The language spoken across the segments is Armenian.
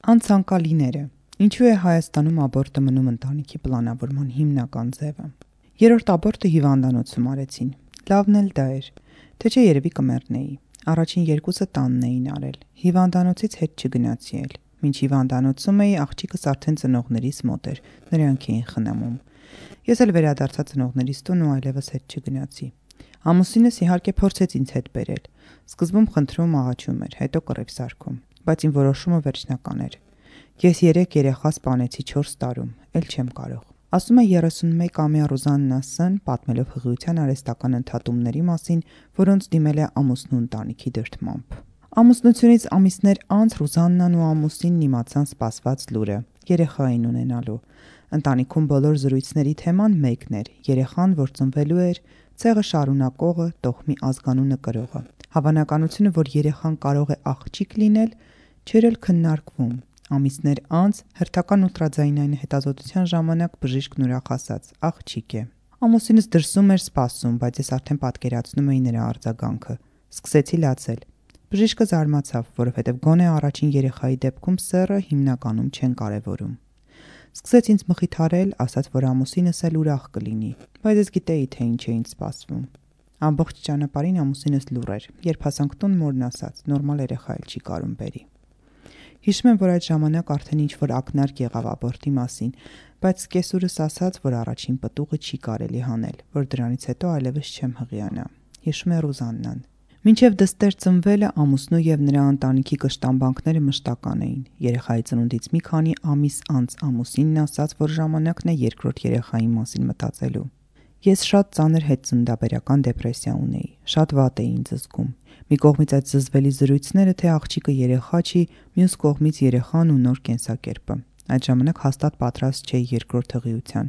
Անցանկալիները։ Ինչու է Հայաստանում աբորտը մնում ընտանիքի պլանավորման հիմնական ձևը։ Երրորդ աբորտը հիվանդանոցում արեցին։ Լավն էլ դա էր, թե չէ երևի կմեռնեի։ Առաջին երկուսը տանն էին արել։ Հիվանդանոցից հետ չգնացի էլ։ Մինչ հիվանդանոցում էի, աղջիկս արդեն ծնողներիս մոտ էր, նրանք էին խնամում։ Ես էլ վերադարձա ծնողներիս տուն ու այլևս հետ չգնացի։ Ամուսինս իհարկե փորձեց ինձ հետ բերել։ Սկզբում խնդրում աղաչում էր, հետո կռիվ սարքում, բայց իմ որոշումը վերջնական էր։ Ես 3 երեխա սպանեցի 4 տարում, էլ չեմ կարող։ Ասում է 31-ամյա Ռուզաննա Ս-ն, պատմելով հղիության արհեստական ընդհատումների մասին, որոնց դիմել է ամուսնու ընտանիքի դրդմամբ։ Ամուսնությունից ամիսներ անց Ռուզաննան ու ամուսինն իմացան սպասված լուրը՝ երեխա էին ունենալու։ Ընտանիքում բոլոր զրույցների թեման մեկն էր՝ երեխան, որ ծնվելու էր, ցեղը շարունակողը, տոհմի ազգանունը կրողը։ Հավանականությունը, որ երեխան կարող է աղջիկ լինել, չէր էլ քննարկվում։ Ամիսներ անց հերթական ուլտրաձայնային հետազոտության ժամանակ բժիշկն ուրախ ասաց՝ աղջիկ է։ Ամուսինս դրսում էր սպասում, բայց ես արդեն պատկերացնում էի նրա արձագանքը։ Սկսեցի լացել։ Բժիշկը զարմացավ, որովհետև գոնե առաջին երեխայի դեպքում սեռը հիմնականում չեն կարևորում։ Սկսեց ինձ մխիթարել, ասաց, որ ամուսինս էլ ուրախ կլինի, բայց ես գիտեի, թե ինչ էին սպասվում։ Ամբողջ ճանապարհին ամուսինս լուռ էր, երբ հասանք տուն, մորն ասաց՝ նորմալ երեխա էլ չի կարում բերի։ Հիշում եմ, որ այդ ժամանակ արդեն ինչ-որ ակնարկ եղավ աբորտի մասին, բայց կեսուրս ասաց, որ առաջին պտուղը չի կարելի հանել, որ դրանից հետո այլևս չեմ հղիանա։ Հիշում է Ռուզաննան։ Մինչև դստեր ծնվելը ամուսնու եւ նրա ընտանիքի կշտամբանքները մշտական էին։ Երեխայի ծնունդից մի քանի ամիս անց ամուսինն ասաց, որ ժամանակն է երկրորդ երեխայի մասին մտածելու։ Ես շատ ծանր հետծննդաբերական դեպրեսիա ունեի, շատ վատ էի ինձ զգում։ Մի կողմից այդ զզվելի զրույցները, թե աղջիկը երեխա չի, մյուս կողմից երեխան ու նոր կենսակերպը։ Այդ ժամանակ հաստատ պատրաստ չէի երկրորդ հղիության,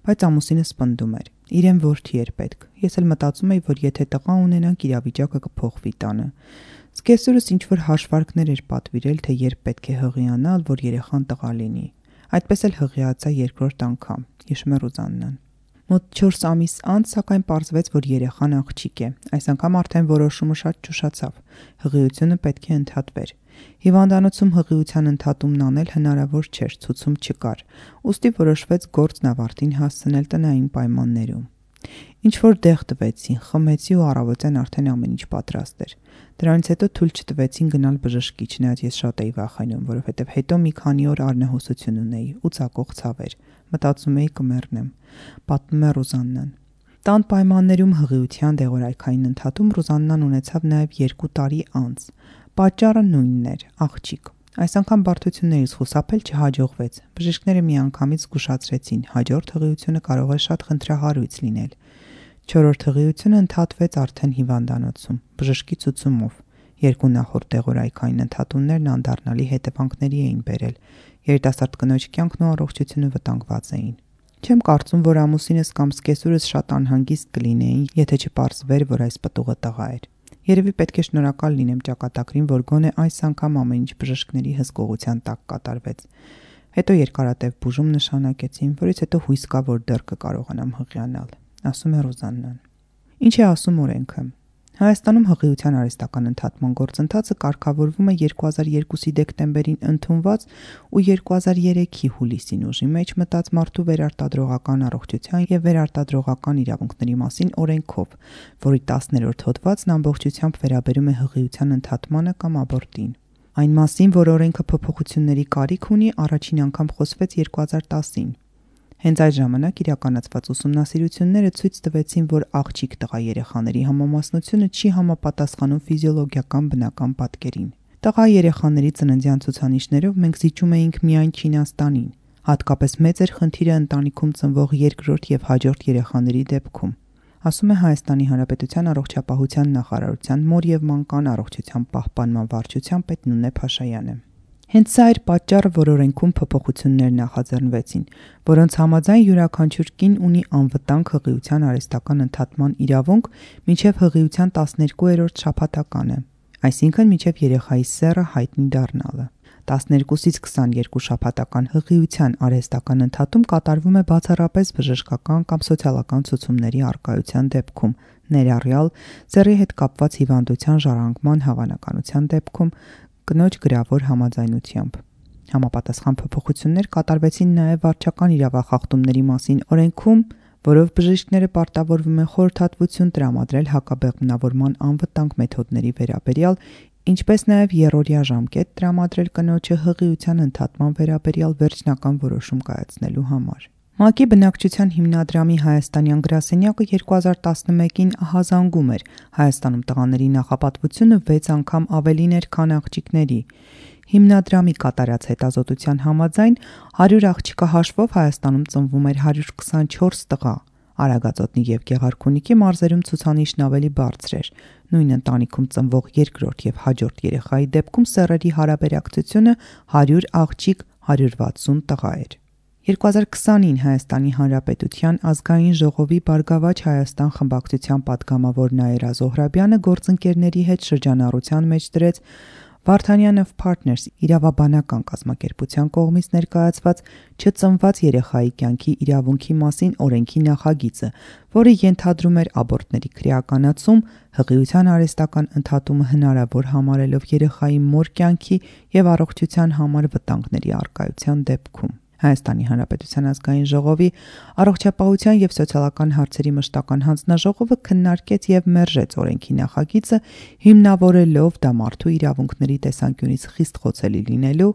բայց ամուսինս պնդում էր։ Իրեն որդի էր պետք։ Ես էլ մտածում էի, որ եթե տղա ունենանք, իրավիճակը կփոխվի տանը։ Սկեսուրս ինչ-որ հաշվարկներ էր պատվիրել, թե երբ պետք է հղիանալ, որ երեխան տղա լինի։ Այդպես էլ հղիացա երկրորդ անգամ, հիշում է Ռուզաննան։ Մոտ 4 ամիս անց, սակայն պարզվեց, որ երեխան աղջիկ է։ Այս անգամ արդեն որոշումը շատ ճուշացավ։ Հղիությունը պետք է ընդհատվեր։ Հիվանդանոցում հղիության ընդհատումն անել հնարավոր չէր, ցուցում չկար։ Ուստի որոշվեց գործն ավարտին հասցնել տնային պայմաններում։ Ինչ որ դեղ տվեցին, խմեցի ու առավոտյան արդեն ամեն ինչ պատրաստ էր։ Դրանից հետո թույլ չտվեցին գնալ բժշկի, չնայած ես շատ էի վախենում, որովհետև հետո մի քանի օր արնահոսություն ունեի ու ծակող ցավեր։ Մտածում էի կմեռնեմ։ Պատմում է Ռուզաննան։ Տան պայմաններում հղիության դեղորայքային ընդհատում Ռուզաննան ունեցավ նաև 2 տարի անց։ Պատճառը նույնն էր՝ աղջիկ։ Այս անգամ բարդություններից խուսափել չհաջողվեց։ Բժիշկները միանգամից զգուշացրեցին՝ հաջորդ հղիությունը կարող է շատ խնդրահարույց լինել։ 4-րդ հղիությունը ընդհատվեց արդեն հիվանդանոցում, բժշկի ցուցումով։ 2 նախորդ դեղորայքային ընդհատումներն անդառնալի հետևանքների էին բերել։ Երիտասարդ կնոջ կյանքն ու առողջությունը վտանգված էին։ Չեմ կարծում, որ ամուսինս կամ սկեսուրս շատ անհանգիստ կլինեին, եթե չպարզվեր, որ այս պտուղը տղա էր։ Երևի պետք է շնորհակալ լինեմ ճակատագրին, որ գոնե այս անգամ ամեն ինչ բժշկների հսկողության տակ կատարվեց։ Հետո երկարատև բուժում նշանակեցին, որից հետո հույս կա, որ դեռ կկարողանամ հղիանալ, ասում է Ռուզաննան։ Ինչ է ասում օրենքը։ Հայաստանում հղիության արհեստական ընդհատման գործընթացը կարգավորվում է 2002-ի դեկտեմբերին ընդունված ու 2003-ի հուլիսին ուժի մեջ մտած մարդու վերարտադրողական առողջության եւ վերարտադրողական իրավունքների մասին օրենքով, որի 10-րդ հոդվածն ամբողջությամբ վերաբերում է հղիության ընդհատմանը կամ աբորտին։ Այն մասին, որ օրենքը փոփոխությունների կարիք ունի, առաջին անգամ խոսվեց 2010-ին։ Հենց այդ ժամանակ իրականացված ուսումնասիրությունները ցույց տվեցին, որ աղջիկ տղա երեխաների համամասնությունը չի համապատասխանում ֆիզիոլոգիական բնական պատկերին։ Տղա երեխաների ծննդյան ցուցանիշներով մենք զիջում էինք միայն Չինաստանին։ Հատկապես մեծ էր խնդիրը ընտանիքում ծնվող երկրորդ եւ հաջորդ երեխաների դեպքում, ասում է Հայաստանի Հանրապետության առողջապահության նախարարության մոր եւ մանկան առողջության պահպանման վարչության պետ Նունե Փաշայանը։ Հենց սա էր պատճառը, որ օրենքում փոփոխություններ նախաձեռնվեցին, որոնց համաձայն յուրաքանչյուր կին ունի անվտանգ հղիության արհեստական ընդհատման իրավունք մինչև հղիության 12-րդ շաբաթականը, այսինքն մինչև երեխայի սեռը հայտնի դառնալը։ 12-ից 22 շաբաթական հղիության արհեստական ընդհատում կատարվում է բացառապես բժշկական կամ սոցիալական ցուցումների առկայության դեպքում, ներառյալ սեռի հետ կապված հիվանդության ժառանգման հավանականության դեպքում կնոջ գրավոր համաձայնությամբ։ Համապատասխան փոփոխություններ կատարվեցին նաև վարչական իրավախախտումների մասին օրենքում, որով բժիշկները պարտավորվում են խորհրդատվություն տրամադրել հակաբեղմնավորման անվտանգ մեթոդների վերաբերյալ, ինչպես նաև երրորդյա ժամկետ տրամադրել կնոջը հղիության ընդհատման վերաբերյալ վերջնական որոշում կայացնելու համար։ ՄԱԿ-ի բնակչության հիմնադրամի հայաստանյան գրասենյակը 2011-ին ահազանգում էր Հայաստանում տղաների նախապատվությունը 6 անգամ ավելին էր, քան աղջիկների։ Հիմնադրամի կատարած հետազոտության համաձայն 100 աղջիկա հաշվով Հայաստանում ծնվում էր 124 տղա։ Արագածոտնի եւ Գեղարքունիքի մարզերում ցուցանիշն ավելի բարձր էր։ Նույն ընտանիքում ծնվող երկրորդ եւ հաջորդ երեխայի դեպքում սեռերի հարաբերակցությունը 100 աղջիկ 160 տղա էր։ 2020-ին Հայաստանի Հանրապետության ազգային ժողովի Բարգավաճ Հայաստան խմբակցության պատգամավոր Նաիրա Զոհրաբյանը գործընկերների հետ շրջանառության մեջ դրեց Vartanian of Partners իրավաբանական կազմակերպության կողմից ներկայացված չծնված երեխայի կյանքի իրավունքի մասին օրենքի նախագիծը, որը ենթադրում էր աբորտների քրեականացում, հղիության արհեստական ընդհատումը հնարավոր համարելով երեխայի մոր կյանքի եւ առողջության համար վտանգների առկայության դեպքում։ Հայաստանի Հանրապետության ազգային ժողովի առողջապահության եւ սոցիալական հարցերի մշտական հանձնաժողովը քննարկեց եւ մերժեց օրենքի նախագիծը, հիմնավորելով դա մարդու իրավունքների տեսանկյունից խիստ խոցելի լինելու,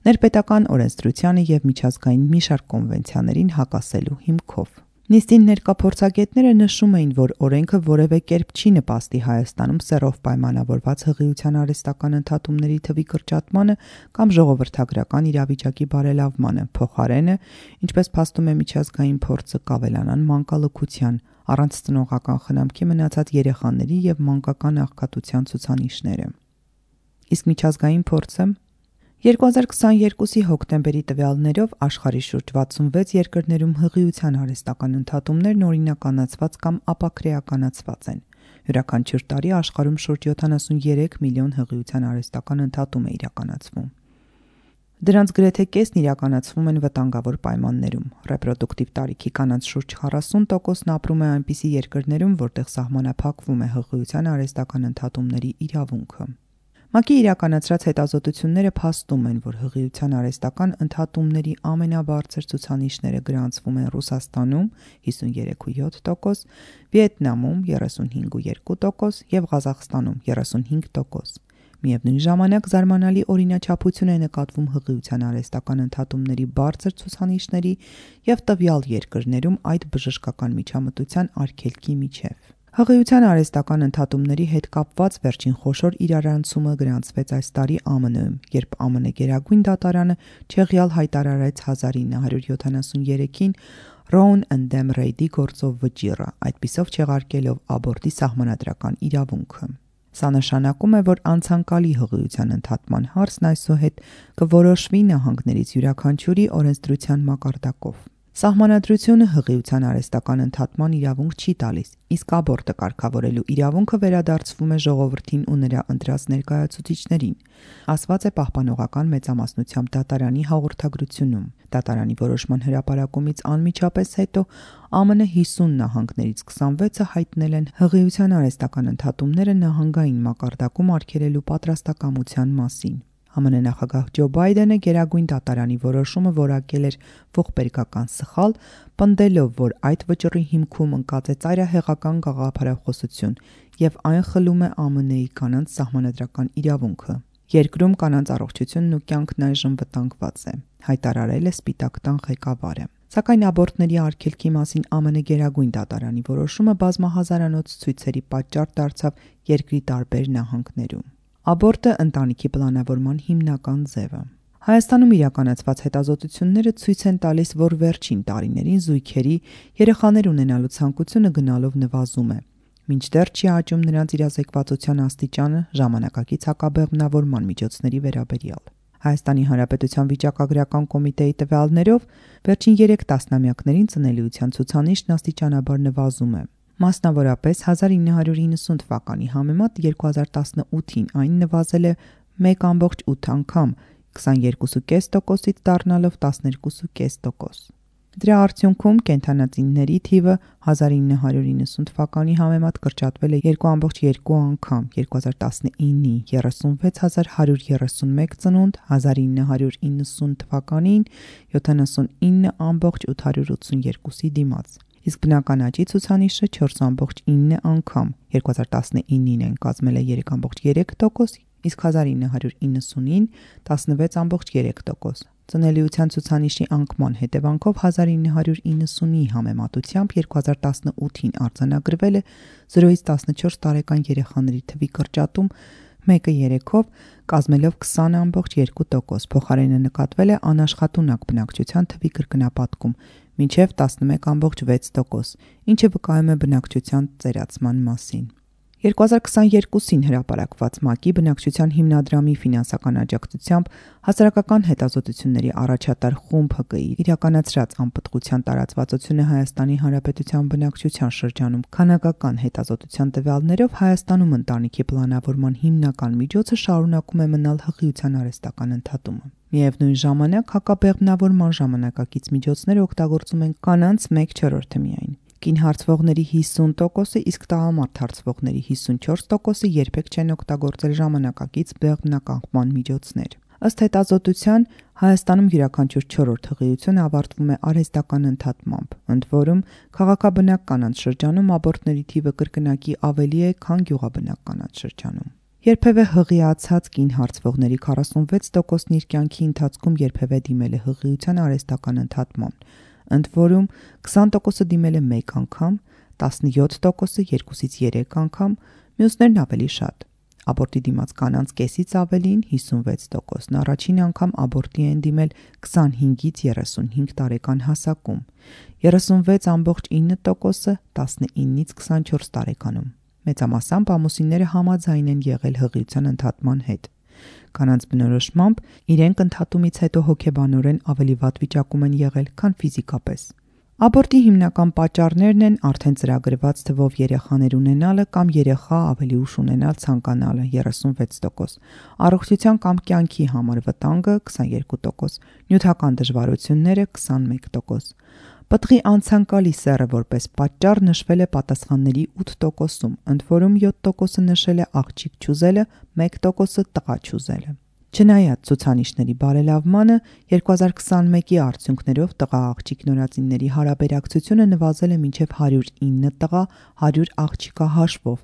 ներպետական օրենսդրությանը եւ միջազգային մի շարք կոնվենցիաներին հակասելու հիմքով։ Նիստին ներկա փորձագետները նշում էին, որ օրենքը որևէ կերպ չի նպաստի Հայաստանում սեռով պայմանավորված հղիության արհեստական ընդհատումների թվի կրճատմանը կամ ժողովրդագրական իրավիճակի բարելավմանը, փոխարենը, ինչպես փաստում է միջազգային փորձը, կավելանան մանկալքության, առանց ծնողական խնամքի մնացած երեխաների եւ մանկական աղքատության ցուցանիշները։ Իսկ միջազգային փորձը 2022-ի հոկտեմբերի տվյալներով աշխարհի շուրջ 66 երկրներում հղիության արհեստական ընդհատումներն օրինականացված կամ ապաքրեականացված են։ Յուրաքանչյուր տարի աշխարհում շուրջ 73 միլիոն հղիության արհեստական ընդհատում է իրականացվում։ Դրանց գրեթե կեսն իրականացվում են վտանգավոր պայմաններում։ Ռեպրոդուկտիվ տարիքի կանանց շուրջ 40%-ն ապրում է այնպիսի երկրներում, որտեղ սահմանափակվում է հղիության արհեստական ընդհատումների իրավունքը։ ՄԱԿ-ի իրականացրած հետազոտությունները փաստում են, որ հղիության արհեստական ընդհատումների ամենաբարձր ցուցանիշները գրանցվում են Ռուսաստանում 53.7%, Վիետնամում 35.2% եւ Ղազախստանում 35%։ Միևնույն ժամանակ զարմանալի օրինաչափություն է նկատվում հղիության արհեստական ընդհատումների բարձր ցուցանիշների եւ տվյալ երկրներում այդ բժշկական միջամտության արգելքի միջև։ Հղիության արհեստական ընդհատումների հետ կապված վերջին խոշոր իրարանցումը գրանցվեց այս տարի ԱՄՆ-ում, երբ ԱՄՆ Գերագույն դատարանը չեղյալ հայտարարեց 1973-ին Roe and Dam Reid-ի գործով վճիռը, այդպիսով չեղարկելով աբորտի սահմանադրական իրավունքը։ Սա նշանակում է, որ անցանկալի հղիության ընդհատման հարցն այսուհետ կորոշվի նահանգներից յուրաքանչյուրի օրենսդրության մակարդակով։ Սահմանադրությունը հղիության արհեստական ընդհատման իրավունք չի տալիս, իսկ աբորտը կարգավորելու իրավունքը վերադարձվում է ժողովրդին ու նրա ընտրած ներկայացուցիչներին, ասված է Պահպանողական մեծամասնությամբ դատարանի հաղորդագրությունում։ Դատարանի որոշման հրապարակումից անմիջապես հետո ԱՄՆ 50 նահանգներից 26-ը հայտնել են հղիության արհեստական ընդհատումները նահանգային մակարդակում արգելելու պատրաստակամության մասին։ ԱՄՆ նախագահ Ջո Բայդենը Գերագույն դատարանի որոշումը որակել էր ողբերգական սխալ, պնդելով, որ այդ վճռի հիմքում ընկած է ծայրահեղական գաղափարախոսություն եւ այն խլում է ԱՄՆ-ի կանանց սահմանադրական իրավունքը։ Երկրում կանանց առողջությունն ու կյանքն այժմ վտանգված է, հայտարարել է Սպիտակ տան ղեկավարը։ Սակայն աբորտների արգելքի մասին ԱՄՆ Գերագույն դատարանի որոշումը բազմահազարանոց ցույցերի պատճառ դարձավ երկրի տարբեր նահանգներում։ Աբորտը ընտանիքի պլանավորման հիմնական ձևը։ Հայաստանում իրականացված հետազոտությունները ցույց են տալիս, որ վերջին տարիներին զույգերի երեխաներ ունենալու ցանկությունը գնալով նվազում է, մինչդեռ չի աճում նրանց իրազեկվածության աստիճանը ժամանակակից հակաբեղմնավորման միջոցների վերաբերյալ։ Հայաստանի Հանրապետության վիճակագրական կոմիտեի տվյալներով վերջին 3 տասնամյակներին ծնելիության ցուցանիշն աստիճանաբար նվազում է։ Մասնավորապես 1990 թվականի համեմատ 2018-ին այն նվազել է 1.8 անգամ, 22.5%-ից դառնալով 12.5%։ Դրա արդյունքում կենդանածինների թիվը 1990 թվականի համեմատ կրճատվել է 2.2 անգամ, 2019-ի 36131 ծնունդ, 1990 թվականին 79.882-ի դիմաց, իսկ բնական աճի ցուցանիշը 4.9 անգամ, 2019-ին այն կազմել է 3.3%, իսկ 1990-ին 16.3%։ Ծնելիության ցուցանիշի անկման հետևանքով 1990-ի համեմատությամբ 2018-ին արձանագրվել է 0-ից 14 տարեկան երեխաների թվի կրճատում 1/3-ով, կազմելով 20.2%, փոխարենը նկատվել է անաշխատունակ բնակչության թվի կրկնապատկում մինչև 11.6%, ինչը վկայում է բնակչության ծերացման մասին։ 2022-ին հրապարակված ՄԱԿ-ի բնակչության հիմնադրամի ֆինանսական աջակցությամբ հասարակական հետազոտությունների առաջատար խումբ ՀԿ-ի իրականացրած անպտղության տարածվածությունը Հայաստանի Հանրապետության բնակչության շրջանում քանակական հետազոտության տվյալներով Հայաստանում ընտանիքի պլանավորման հիմնական միջոցը շարունակում է մնալ հղիության արհեստական ընդհատումը։ Միևնույն ժամանակ հակաբեղմնավորման ժամանակակից միջոցները օգտագործում են կանանց 1/4-ը միայն։ Կին հարցվողների 50%-ը, իսկ տղամարդ հարցվողների 54%-ը երբեք չեն օգտագործել ժամանակակից բեղմնականխման միջոցներ։ Ըստ հետազոտության, Հայաստանում յուրաքանչյուր 4-րդ հղիություն ավարտվում է արհեստական ընդհատմամբ, ընդ որում քաղաքաբնակ կանանց շրջանում աբորտների թիվը կրկնակի ավելի է, քան գյուղաբնակ կանանց շրջանում։ Երբևէ հղիացած կին հարցվողների 46%-ն իր կյանքի ընթացքում երբևէ դիմել է հղիության արհեստական ընդհատման, ընդ որում 20%-ը դիմել է 1 անգամ, 17%-ը 2-ից 3 անգամ, մյուսներն ավելի շատ։ Աբորտի դիմաց կանանց կեսից ավելին 56%-ն առաջին անգամ աբորտի են դիմել 25-ից 35 տարեկան հասակում, 36.9%-ը 19-ից 24 տարեկանում։ Մեծամասամբ ամուսինները համաձայն են եղել հղիության ընդհատման հետ։ Կանանց բնորոշմամբ իրենք ընդհատումից հետո հոգեբանորեն ավելի վատ վիճակում են եղել, քան ֆիզիկապես։ Աբորտի հիմնական պատճառներն են արդեն ծրագրված թվով երեխաներ ունենալը կամ երեխա ավելի ուշ ունենալ ցանկանալը 36%, առողջության կամ կյանքի համար վտանգը 22%, նյութական դժվարությունները 21%։ Պտղի անցանկալի սեռը որպես պատճառ նշվել է պատասխանների 8%-ում, ընդ որում 7%-ը նշել է աղջիկ չուզելը, 1%-ը տղա չուզելը։ Չնայած ցուցանիշների բարելավմանը, 2021-ի արդյունքներով տղա-աղջիկ նորածինների հարաբերակցությունը նվազել է մինչև 109 տղա, 100 աղջիկա հաշվով,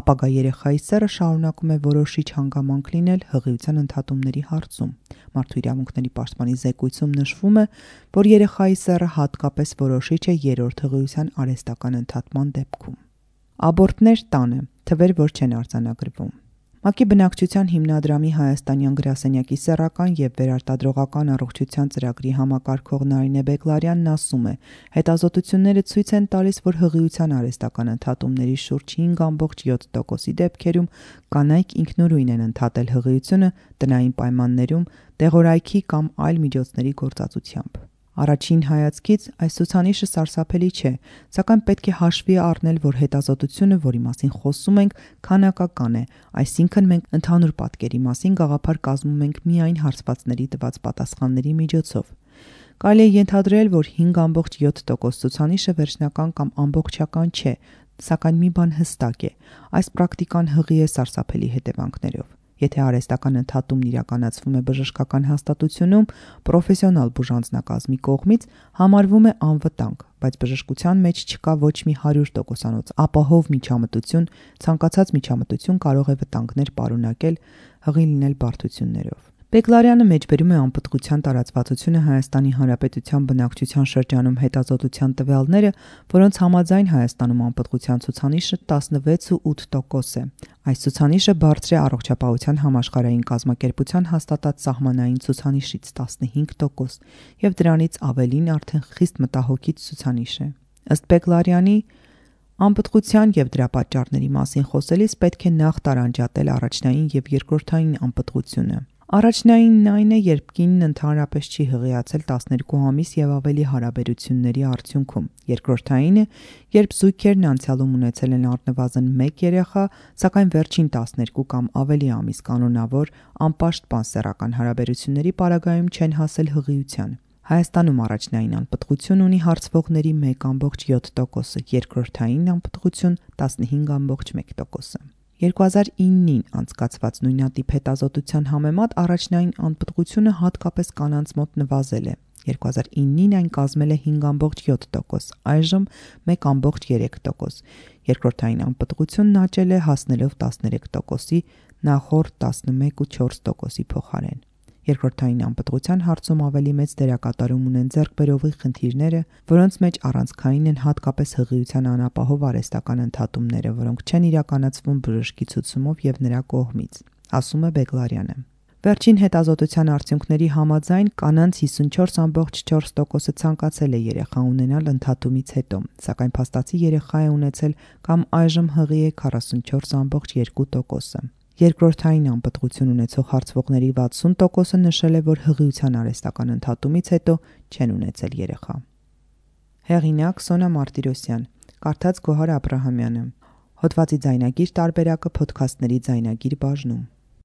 ապագա երեխայի սեռը շարունակում է որոշիչ հանգամանք լինել հղիության ընդհատումների հարցում։ Մարդու իրավունքների պաշտպանի զեկույցում նշվում է, որ երեխայի սեռը հատկապես որոշիչ է երրորդ հղիության արհեստական ընդհատման դեպքում։ Աբորտներ տանը, թվեր, որ չեն արձանագրվում։ ՄԱԿ-ի բնակչության հիմնադրամի հայաստանյան գրասենյակի սեռական եւ վերարտադրողական առողջության ծրագրի համակարգող Նարինե Բեգլարյանն ասում է. հետազոտությունները ցույց են տալիս, որ հղիության արհեստական ընդհատումների շուրջ 5.7%-ի դեպքերում կանայք ինքնուրույն են ընդհատել հղիությունը տնային պայմաններում, տեղորայքի կամ այլ միջոցների գործածությամբ։ Առաջին հայացքից այս ցուցանիշը սարսափելի չէ, սակայն պետք է հաշվի առնել, որ հետազոտությունը, որի մասին խոսում ենք, քանակական է, այսինքն մենք ընդհանուր պատկերի մասին գաղափար կազմում ենք միայն հարցվածների տված պատասխանների միջոցով։ Կարելի է ենթադրել, որ 5.7% ցուցանիշը վերջնական կամ ամբողջական չէ, սակայն մի բան հստակ է. այս պրակտիկան հղի է սարսափելի հետևանքներով։ Եթե արհեստական ընդհատումն իրականացվում է բժշկական հաստատությունում պրոֆեսիոնալ բուժանձնակազմի կողմից, համարվում է անվտանգ, բայց բժշկության մեջ չկա ոչ մի 100%-անոց ապահով միջամտություն, ցանկացած միջամտություն կարող է վտանգներ պարունակել, հղի լինել բարդություններով։ Բեգլարյանը մեջբերում է անպտղության տարածվածությունը Հայաստանի Հանրապետության բնակչության շրջանում հետազոտության տվյալները, որոնց համաձայն Հայաստանում անպտղության ցուցանիշը 16.8% է։ Այս ցուցանիշը բարձր է առողջապահության համաշխարհային կազմակերպության հաստատած սահմանային ցուցանիշից 15% եւ դրանից ավելին արդեն խիստ մտահոգիչ ցուցանիշ է։ Ըստ Բեգլարյանի, անպտղության եւ դրա պատճառների մասին խոսելիս պետք է նախ տարանջատել առաջնային եւ երկրորդային անպտղությունը։ Առաջնայինն այն է, երբ կինն ընդհանրապես չի հղիացել 12 ամիս եւ ավելի հարաբերությունների արդյունքում։ Երկրորդայինը, երբ զույգերն անցյալում ունեցել են առնվազն 1 երեխա, սակայն վերջին 12 կամ ավելի ամիս կանոնավոր անպաշտպան սեռական հարաբերությունների պարագայում չեն հասել հղիության։ Հայաստանում առաջնային անպտղություն ունի հարցվողների 1.7%-ը, երկրորդային անպտղություն 15.1%-ը։ 2009-ին անցկացված նույնատիպ հետազոտության համեմատ առաջնային անպտղությունը հատկապես կանանց մոտ նվազել է։ 2009-ին այն կազմել է 5.7%, այժմ 1.3%։ Երկրորդային անպտղությունն աճել է հասնելով 13%-ի, նախորդ 11.4%-ի փոխարեն։ Երկրորդային անպտղության հարցում ավելի մեծ դերակատարում ունեն ձեռքբերովի խնդիրները, որոնց մեջ առանցքային են հատկապես հղիության անապահով արհեստական ընդհատումները, որոնք չեն իրականացվում բժշկի ցուցումով եւ նրա կողմից, ասում է Բեգլարյանը։ Վերջին հետազոտության արդյունքների համաձայն կանանց 54.4%-ը ցանկացել է երեխա ունենալ ընդհատումից հետո, սակայն փաստացի երեխա է ունեցել կամ այժմ հղի է 44.2%-ը։ Երկրորդային անպտղություն ունեցող հարցվողների 60%-ը նշել է, որ հղիության արհեստական ընդհատումից հետո չեն ունեցել երեխա։ Հեղինակ Սոնա Մարտիրոսյան, կարդաց Գոհար Աբրահամյանը։ Հոդվածի ձայնագիր տարբերակը փոդքասթների ձայնագիր բաժնում։